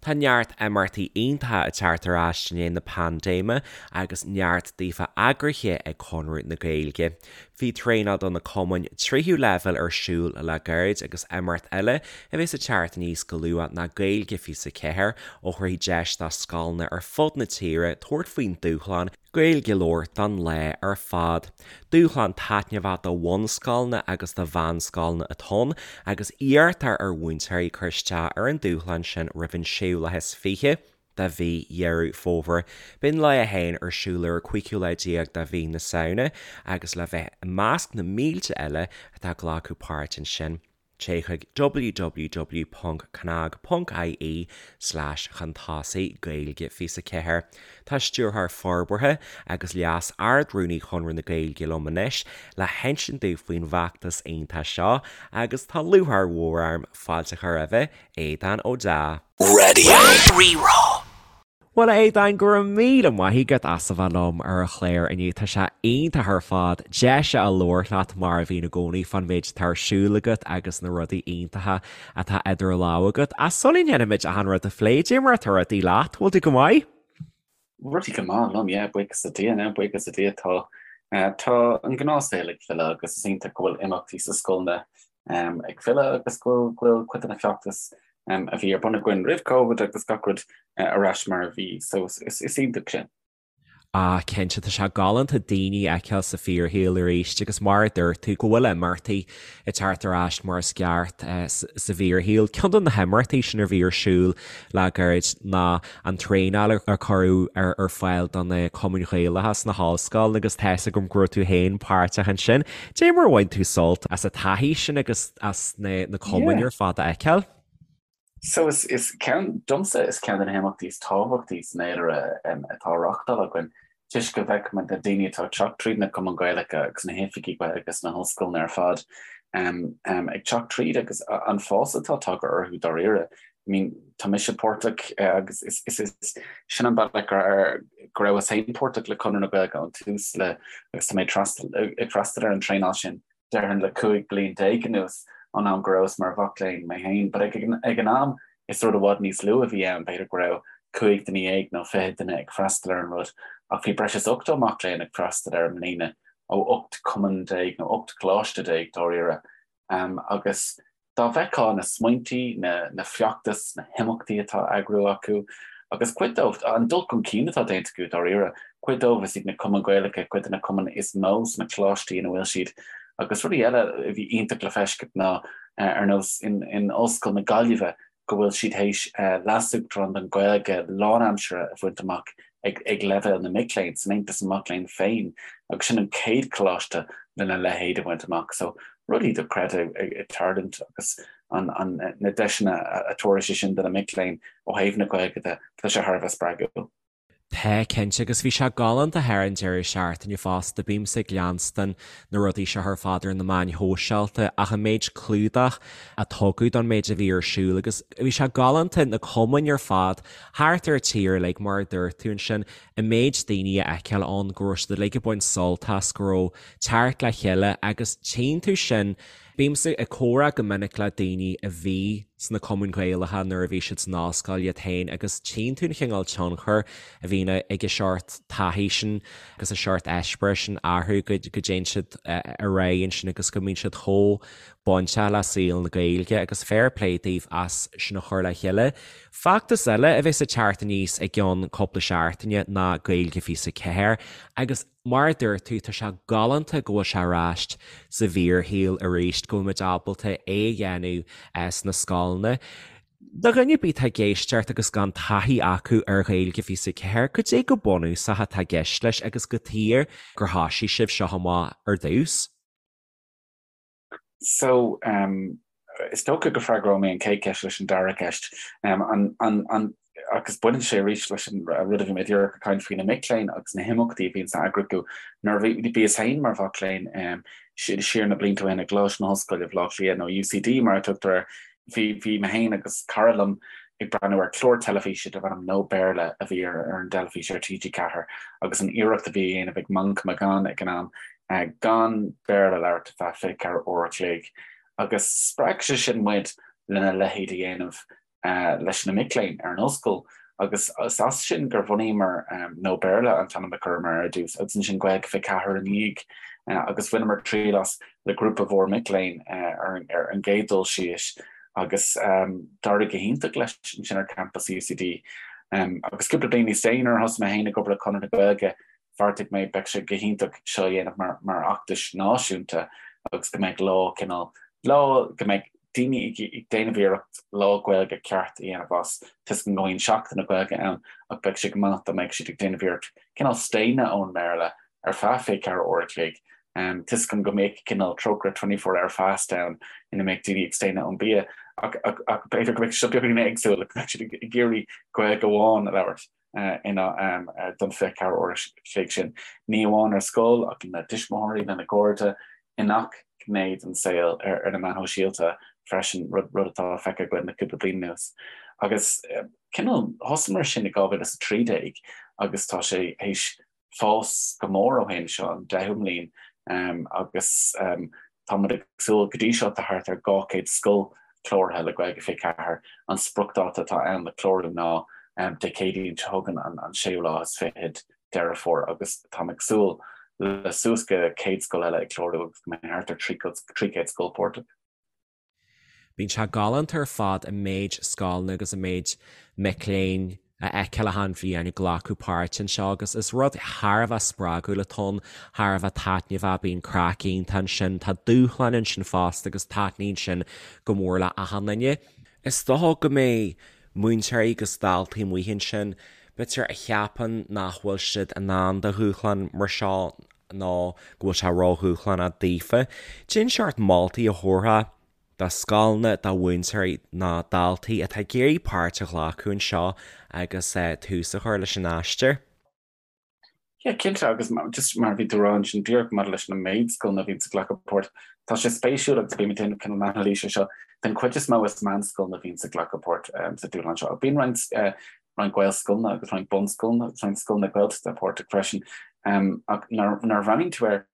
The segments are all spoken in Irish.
Tá neart imeachtaí iontacha ag teacht ar ais i ndiaidh na paindéime agus neart daofa eagraithe ag Conradh na Gaeilge. Bhí traenáil do na cumainn tríú leibhéal ar siúl le gairid agus imeacht eile a bheas ag teacht aníos go luath ná Gaeilge 24 a thabharfaidh deis do scoileanna ar fud na tíre tabhairt faoin dúshlán Gaeilge a labhairt don lá ar fad. Dúshlán taitneamhach do bhunscoileanna agus do mheánscoileanna atá ann agus iarrtar ar mhúinteoirí cur isteach ar an dúshlán sin roimh an séú lá is fiche de mhí Dheireadh Fómhair. Beidh an lá féin ar siúl ar an cúigiú lá déag de mhí na Samhna agus le bheith i measc na mílte eile atá ag glacadh páirt ansin, Téigh chuig www.cnag.ie slash chun tosaigh Gaeilge 24. Tá Stiúrthóir Forbartha agus Leas Ard-Rúnaí Chonradh na Gaeilge liom anois le hinsint dúinn faoin bhfeachtas iontach seo agus tá lúcháir mhór orm fáilte a chur roimhe, Aodhán Ó Deá. Raidió Rí-Rá. Bhuel, a Aodáin, go raibh míle maith agat as a bheith liom ar an chlár inniu. Tá sé iontach ar fad deis a labhairt leat mar a bhíonn i gcónaí fán méid atá ar siúl agat agus na rudaí iontacha atá idir lámha agat. Ach sula ndéanaimid achan rud a phlé, cad é mar atá rudaí leat? Bhfuil tú go maith? Rudaí go maith liom, yeah, buíochas le Dia, now, buíochas le Dia, tá, tá an gnáthshaol ag filleadh agus is iontach go bhfuil imeachtaí sa scoileanna ag filleadh agus go bhfuil, go bhfuil cuid de na feachtais a bhí ar bun againn roimh Covid agus gach rud ar ais mar a bhí, so is, is iontach sin. Ah, cinnte, tá sé galánta daoine a fheiceáil sa fíorshaol arís agus mar a dúirt tú, go bhfuil imeachtaí ag teacht ar ais mar is ceart sa bhfíorshaol. Ceann de na himeachtaí sin a bhí ar siúl le gairid ná an traenáil a cuireadh ar fáil do na cumainn Ghaelacha sna hollscoileanna agus tá 'fhios agam go raibh tú féin páirteach ansin. Cad é mar a bhain tú sult as an taithí sin agus as na cumainn ar fad a fheiceáil? So is is ceann, domsa is ceann de na himeachtaí is tábhachtaí san fhéilire atá á reáchtáil againn toisc go bhfeicimid na daoine atá ag teacht tríd na cumainn Ghaelacha agus na hoifigí Gaeilge sna hollscoileanna ar fad ag teacht tríd agus an fás atá tagtha orthu dáiríre. I mean, tá mise páirteach agus is is is sin an bealach go go rabhas féin páirteach le Conradh na Gaeilge ón tús le agus tá mé ag freastal ar an traenáil sin déarfainn le 15 bliain anuas ón am go rabhas mar mhac léinn mé féin. But ag ag an am is rud i bhfad níos lú a bhí ann, b'fhéidir go raibh 15 duine nó 20 duine ag freastal ar an rud ach bhí breis is 80 mac léinn ag freastal air i mbliana ó 18 cumann nó 18 coláiste dáiríre. Agus Dá bhfeicfeá na smaointí, na feachtais, na himeachtaí atá á eagrú acu, agus cuid dóibh, an dul chun cinn atá déanta acu dáiríre, cuid dóibh is iad na cumainn Ghaelacha cuid de na cumainn is mó sna coláistí ina bhfuil siad. Agus rudaí eile a bhí iontach le feiscint ná, ar nós in Ollscoil na Gaillimhe, go bhfuil siad théis Leas-Uachtarán don Ghaeilge lánaimseartha a bhaint amach ag leibhéal na mic léinn, san Aontas na Mac Léinn féin, agus sin an chéad choláiste lena leithéid a bhaint amach. So, rudaí dochreidte ag tarlúint agus na deiseanna a tabharfaidh sé sin do na mic léinn ó thaobh na Gaeilge de, tá sé thar a bheith spreagúil. Tá, cinnte, agus bhí sé galánta thar an deireadh seachtaine fosta, bímse ag leanstan na rudaí seo ar fad ar na meáin shóisialta ach an méid clúdach a tugadh don méid a bhí ar siúl agus bhí sé galánta na cumainn ar fad thart ar an tír uilig mar a dúirt tú ansin, an méid daoine a fheiceáil ann go raibh siad uilig ag baint sult as, go raibh teacht le chéile agus tchíonn tú sin. Bímse ag comhrá go minic le daoine a bhí sna cumainn Ghaelacha nuair a bhí siad san ollscoil iad féin agus tchíonn tú an chineál tionchair a bhíonn ag an seort taithí sin agus an seort eispéireas sin orthu go dtéann siad ar aghaidh ansin agus go mbíonn siad chomh bainteach le saol na Gaeilge agus fair play daoibh as sin a chur le chéile. Feachtas eile a bheas ag teacht aníos i gceann cúpla seachtaine ná Gaeilge 24 agus Mar a dúirt tú, tá sé galánta go bhfuil sé ar ais sa bhfíorshaol arís, go bhfuil muid ábalta é a dhéanamh sna scoileanna. Do dhuine ar bith atá ag éisteacht agus gan taithí acu ar Ghaeilge 24, cad é go bunúsach atá i gceist leis agus cad chuige gur thoisigh sibh seo amach ar dtús? So, is dócha go bhfreagróidh mé an chéad cheist leis an dara ceist. An, an, an, agus baineann sé arís leis an rud a bhí mé díreach ag caint faoi, na mic léinn agus na himeachtaí a bhíonn á eagrú acu. Nuair a bhíos féin mar mhac léinn siar na blianta ó shin i gColáiste na hOllscoile Bhaile Átha Cliath, nó UCD mar a tugtar air, bhí, bhí mé féin agus cara liom ag breathnú ar chlár teilifíse darb ainm No Béarla a bhí ar ar an dteilifís ar TG4 agus an iarracht a bhí á dhéanamh ag Manchán Magan ag an am gan Béarla a labhairt ar feadh 24 uair a chloig agus spreag sé sin muid lena leithéid a dhéanamh. Leis na mic léinn ar an ollscoil agus is as sin gur bhunaíomar No Béarla an t-ainm a chuireamar ar dtús agus ansin Gaeilge 24 ina dhiaidh agus bhaineamar triail as le grúpa mhór mic léinn ar an gcéad dul síos agus d'éirigh go hiontach leis ansin ar campas UCD. Agus cúpla bliain níos déanaí nuair a thosaigh mé féin ag obair le Conradh na Gaeilge bheartaigh mé beidh sé go hiontach seo a dhéanamh mar mar fheachtas náisiúnta agus go mbeidh lá cineál lá go mbeidh daoine ag ag déanamh iarracht lá Gaeilge ceart a dhéanamh as toisc go mbíonn Seachtain na Gaeilge ann ach beidh sé go maith dá mbeidh siad ag déanamh iarracht cineál staonadh ón mBéarla ar feadh 24 uair a chloig toisc go mbeadh cineál trócaire 24 hour fast ann ina mbeidh daoine ag staonadh ón bia ach ach ach b'fhéidir go mbeidh sé beagáinín éagsúil go mbeidh siad ag iarraidh Gaeilge amháin a labhairt. ina don 24 uair a chloig sin, ní amháin ar scoil ach lena dtuismitheoirí, lena gcairde, i ngach gné den saol, ar na meáin shóisialta freisin, rud atá feicthe againn le cúpla bliain anuas. Agus cineál, thosaíomar sin i 2013 agus tá sé théis fás go mór ó shin, seo an deichiú mbliain agus tá muid ag súil go dtí seo tá thart ar 200 scoil cláraithe le Gaeilge 24. An spriocdháta atá ann le clárú ná Dé Céadaoin seo chugainn an séú lá is fichead Deireadh Fómhair agus táim ag súil le suas go 100 scoil eile ag clárú agus go mbeidh thart ar 300 scoil páirteach. Bíonn sé galánta ar fad an méid scoileanna agus an méid mic léinn a fheiceáil achan bhliain ag glacadh páirte anseo agus is rud thar a bheith spreagúil atá ann, thar a bheith taitneamhach, bíonn craic iontach ansin, tá dúshláin ansin fosta agus taitníonn sin go mór le achan duine. Is dócha go mbeidh múinteoirí agus daltaí amuigh ansin, b'fhéidir, a cheapann nach bhfuil siad in ann do dhúshlán mar seo nó go bhfuil sé ródhúshlánach daofa. Cén seort moltaí a thabharfá do scoileanna, do mhúinteoirí nó daltaí atá ag iarraidh páirt a ghlacadh anseo agus tús a chur leis an aistear? Yeah, cinnte, agus just mar a bhí tú a rá ansin díreach maidir leis an méid scoileanna a bhíonns ag glacadh páirt, tá sé spéisiúil agus bím ag déanamh cineál anailíse air seo, den chuid is mó is meánscoileanna a bhíonns ag glacadh páirt sa dúshlán seo. Bíonn roinnt roinnt Gaelscoileanna agus roinnt bunscoileanna agus roinnt scoileanna Gaeltachta páirteach freisin. Ach nuair a bhreathnaíonn tú air,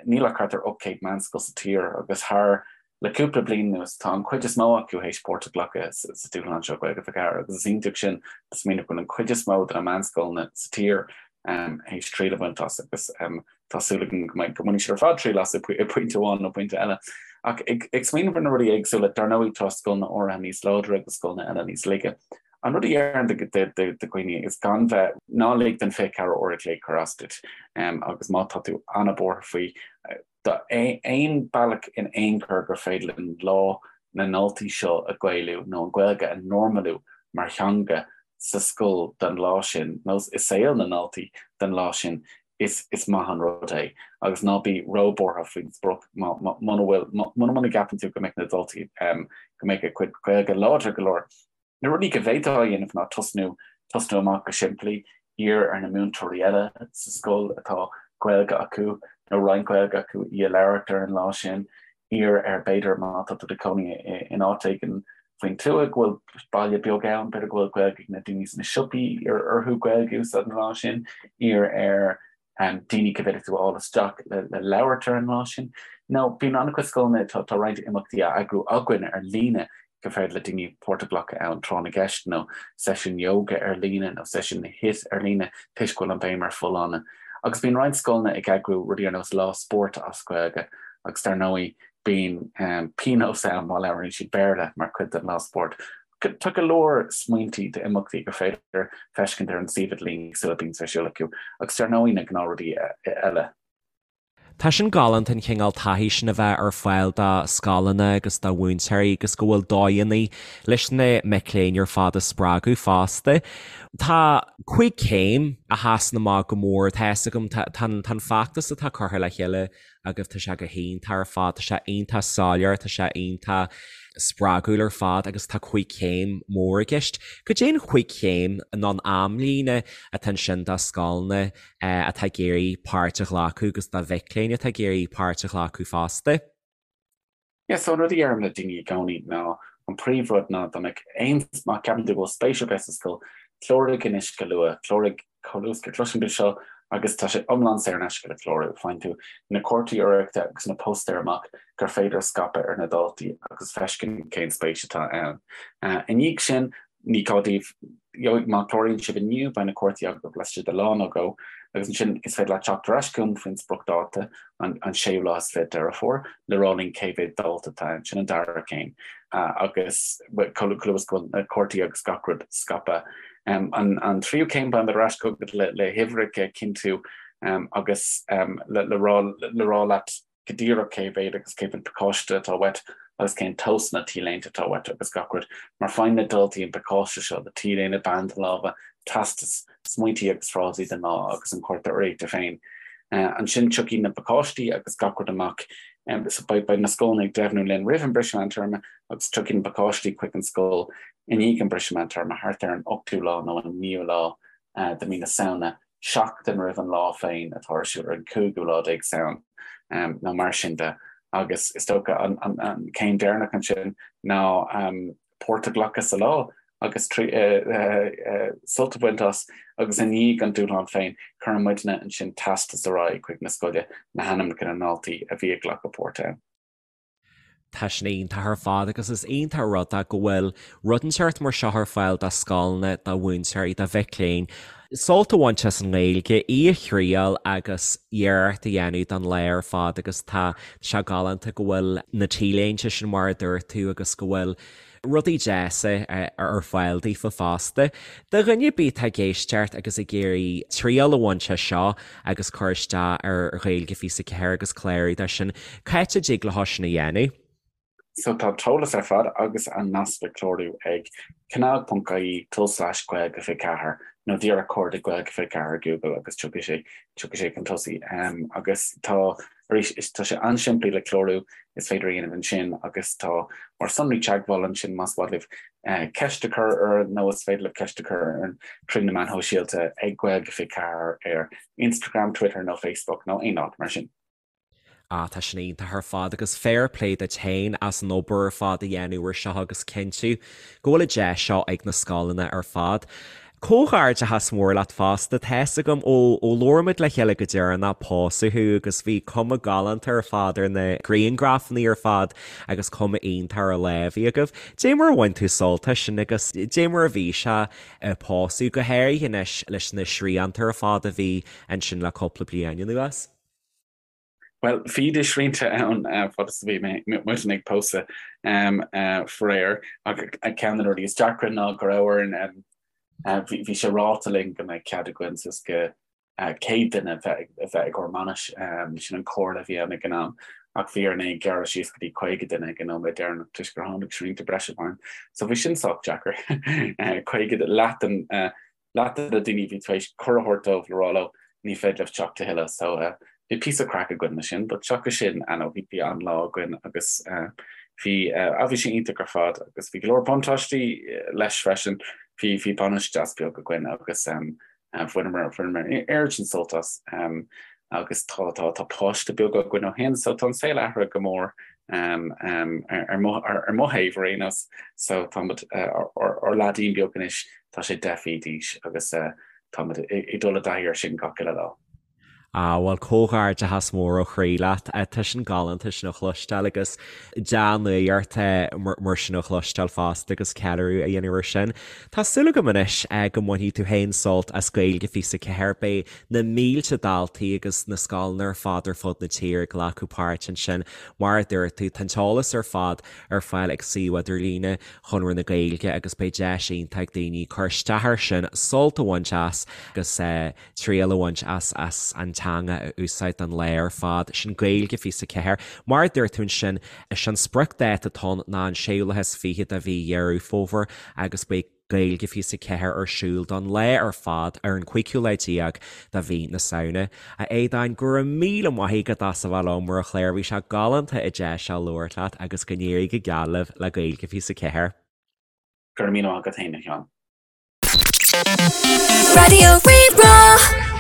níl ach thart ar 800 meánscoil sa tír agus thar le cúpla bliain anuas tá an chuid is mó acu théis páirt a ghlacadh sa dúshlán seo Gaeilge 24 agus is iontach sin a smaoineamh go bhfuil an chuid is mó de na meánscoileanna sa tír théis triail a bhaint as agus tá súil agam go mbeidh go mbainfidh siad ar fad triail as i bpointe amháin nó pointe eile. Ach ag ag smaoineamh ar na rudaí éagsúla, dar ndóigh tá scoileanna áirithe níos láidre agus scoileanna eile níos laige. An rud a déarfainn do dhaoine is gan bheith, ná lig don 24 uair a chloig cur as duit agus má tá tú an-bhuartha faoi, aon bealach in aon chor gur féidir linn lá na ndaltaí seo a Ghaelú nó an Ghaeilge a normalú mar theanga sa scoil don lá sin nó i saol na ndaltaí don lá sin, is is maith an rud é agus ná bí róbhuartha faoin sprioc muna bhfuil muna muna gceapann tú go mbeidh na daltaí go mbeidh a gcuid Gaeilge láidir go leor. Na rudaí go bhféadfá a dhéanamh ná tosnú tosnú amach go simplí, iarr ar na múinteoirí eile sa scoil atá Gaeilge acu nó roinnt Gaeilge acu í a labhairt ar an lá sin, iarr ar b'fhéidir má tá tú i do chónaí in áit éigin faoin tuath go bhfuil baile beag ann, b'fhéidir go bhfuil Gaeilge ag na daoine sna siopaí, iarr orthu Gaeilge a úsáid an lá sin, iarr ar daoine go bhféadfadh tú a fháil isteach le le labhairt ar an lá sin. Nó bíonn an-chuid scoileanna, tá tá roinnt imeachtaí á eagrú againn ar líne gur féidir le daoine páirt a ghlacadh ann, tráth na gceist nó seisiún yoga ar líne nó seisiún HIIT ar líne toisc go bhfuil an bhéim ar folláine. Agus bíonn roinnt scoileanna ag eagrú rudaí ar nós lá spóirt as Gaeilge agus dar ndóigh bíonn pionós ann má labhraíonn siad Béarla mar chuid den lá spóirt. Tá go leor smaointí d'imeachtaí gur féidir feiscint ar an suíomh idirlín éagsúla a bíonns ar siúl acu agus dar ndóigh na gnáthrudaí eile. Tá sin galánta an chineál taithí sin a bheith ar fáil do scoileanna agus do mhúinteoirí agus go bhfuil dóigheanna leis na mic léinn ar fad a spreagadh fosta. Tá cúig chéim a sheasann amach go mór, tá fhios agam, tá an feachtas atá curtha le chéile agaibh, tá sé go hiontach ar fad, tá sé iontach soiléir, tá sé iontach spreagúil ar fad agus tá cúig chéim mór i gceist. Cad é an chúig chéim nó an amlíne atá ansin do scoileanna atá ag iarraidh páirt a ghlacadh agus do mhic léinn atá ag iarraidh páirt a ghlacadh fosta? Yeah, so an rud a dheirim le daoine i gcónaí ná an príomhrud ná dá mbeadh aon, má cheapann tú go bhfuil spéis ar bith sa scoil, cláraigh anois go luath, cláraigh chomh luath is go gcloiseann tú seo. Agus tá sé iomlán saor in aisce le clárú. Faigheann tú na cártaí urraíochta agus na póstaeir amach gur féidir a scaipeadh ar na daltaí agus feiscint cén spéis atá ann. I ndiaidh sin, ní gá daoibh, má chláraíonn sibh inniu, beidh na cártaí agaibh laistigh de lá nó dhó, agus ansin is féidir leat teacht ar ais chugam faoin spriocdháta, an séú lá is 20 Deireadh Fómhair, le rá linn cé mhéad dalta atá ann. Sin an dara céim. Agus chomh luath is go bhfuil na cártaí agus gach rud scaipthe. An tríú céim, beimid ar ais chugat le huimhreacha a chinntiú agus le rá leat go díreach cé mhéad agus cé mhéad pacáiste atá uait agus cén tomhasanna T-léinte atá uait agus gach rud, mar faigheann na daltaí an pacáiste seo le T-léine, banda láimhe, teastas, smaointí agus frásaí don lá agus an cárta urraíochta féin. Ansin tiocfaidh na pacáistí agus gach rud amach. Beidh na scoileanna ag deimhniú linn roimh an briseadh meántéarma agus tiocfaidh na pacáistí chuig an scoil i ndiaidh an briseadh meántéarma, thart ar an ochtú lá nó an naoú lá de mhí na Samhna, seachtain roimh an lá féin atá ar siúl ar an cúigiú lá déag Samhain nó mar sin de. Agus is dócha an céim deireanach ansin ná páirt a ghlacadh sa lá agus sult a bhaint as agus i ndiaidh an dúshlán féin, cuireann muidne ansin teastas ar aghaidh chuig na scoile le hainmneacha na ndaltaí a bhí ag glacadh páirt ann. Tá sin iontach ar fad agus is iontach an rud é go bhfuil rud inteacht mar seo ar fáil do scoileanna, do mhúinteoirí, do mhic léinn. Sult a bhaint as an nGaeilge, í a thriail agus iarracht a dhéanamh don lá ar fad agus tá sé galánta go bhfuil na T-léinte sin mar a dúirt tú agus go bhfuil rudaí deasa ar fáil daofa fosta. Do dhuine ar bith atá ag éisteacht agus ag iarraidh triail a bhaint as seo agus cur isteach ar Ghaeilge 24 agus clárú dó sin, cá háit a dtig leo sin a dhéanamh? So tá an t-eolas ar fad agus an nasc le clárú ag cnag.ie tulslais Gaeilge 24 nó díreach cuardaigh Gaeilge 24 ar Google agus tiocfaidh sé tiocfaidh sé chun tosaigh. Agus tá Arís, tá sé an-simplí le clárú, is féidir a dhéanamh ansin agus tá ár sonraí teagmhála ansin más mhaith libh ceist a chur orainn nó is féidir libh ceist a chur orainn trí na meáin shóisialta ag Gaeilge 24 ar Instagram, Twitter nó Facebook nó aon áit mar sin. Ah, tá sin iontach ar fad agus fair play duit féin as an obair ar fad a dhéanamh ar seo agus cinntiú go bhfuil an deis seo ag na scoileanna ar fad. Comhghairdeachas mór leat fosta, tá's agam ó labhair muid le chéile go deireanach pósadh thú agus bhí cuma galánta ar fad ar na grianghrafanna ar fad agus cuma iontach ar an lá a bhí agaibh. Dé mar a bhain tú sult as sin agus dé mar a bhí sé ag pósadh, go háirithe anois leis na srianta ar fad a bhí ansin le cúpla bliain anuas? Bhuel, bhí na srianta ann fad is a bhí muidne ag pósadh faraor, ach ceann de na rudaí is deacra ná go raibh orainn, bhí sé ráite linn go mbeadh cead againn suas go 100 duine a bheith ag ár mbainis, sin an chomhairle a bhí ann ag an am, ach bhí orainn é a ghearradh síos go dtí 50 duine ag an nóiméad deireanach toisc gur tháinig srianta breise i bhfeidhm. So bhí sin sách deacair, 50, leath den leath de na daoine a bhí tar éis cuireadh a thabhairt dóibh le rá leo ní féidir libh teacht a thuilleadh so bhí píosa craic againn leis sin but seachas sin ah no bhí an-lá againn agus bhí ah bhí sé iontach ar fad agus bhí go leor buntáistí leis freisin bhí bhí bainis deas beag againn agus bhaineamar bhaineamar oiread sin sult as agus tá tá tá páiste beag againn ó shin so tá an saol athraithe go mór ar mo ar mo thaobh ar aon nós so táimid ár leaidín beag anois tá sé 10 mhí d'aois agus táimid ag dul i dtaithí air sin gach uile lá. Ah bhuel comhghairdeachas mór ó chroí leat. Tá sin galánta sin a chloisteáil agus dea-nuacht mar sin a chloisteáil fosta agus ceiliúradh a dhéanamh air sin. Tá súil agam anois go mbainfidh tú féin sult as Gaeilge 24. Beidh na mílte daltaí agus na scoileanna ar fad ar fud na tíre ag glacadh páirt ansin. Mar a dúirt tú, tá an t-eolas ar fad ar fáil ag suíomh idirlíne Chonradh na Gaeilge agus beidh deis iontach ag daoine cur isteach air sin, sult a bhaint as agus triail a bhaint as as an teanga a úsáid don lá ar fad. Sin Gaeilge 24. Mar a dúirt tú ansin, is é an spriocdháta atá ann ná an séú lá is fiche de mhí Dheireadh Fómhair agus beidh Gaeilge 24 ar siúl don lá ar fad ar an cúigiú lá déag de mhí na Samhna. A Aodáin, go raibh míle maith agat as a bheith liom ar an chlár, bhí sé galánta an deis seo labhairt leat agus go n-éirí go geal libh le Gaeilge 24. Go raibh míle maith agat féin, a Sheáin. Raidió Rí-Rá.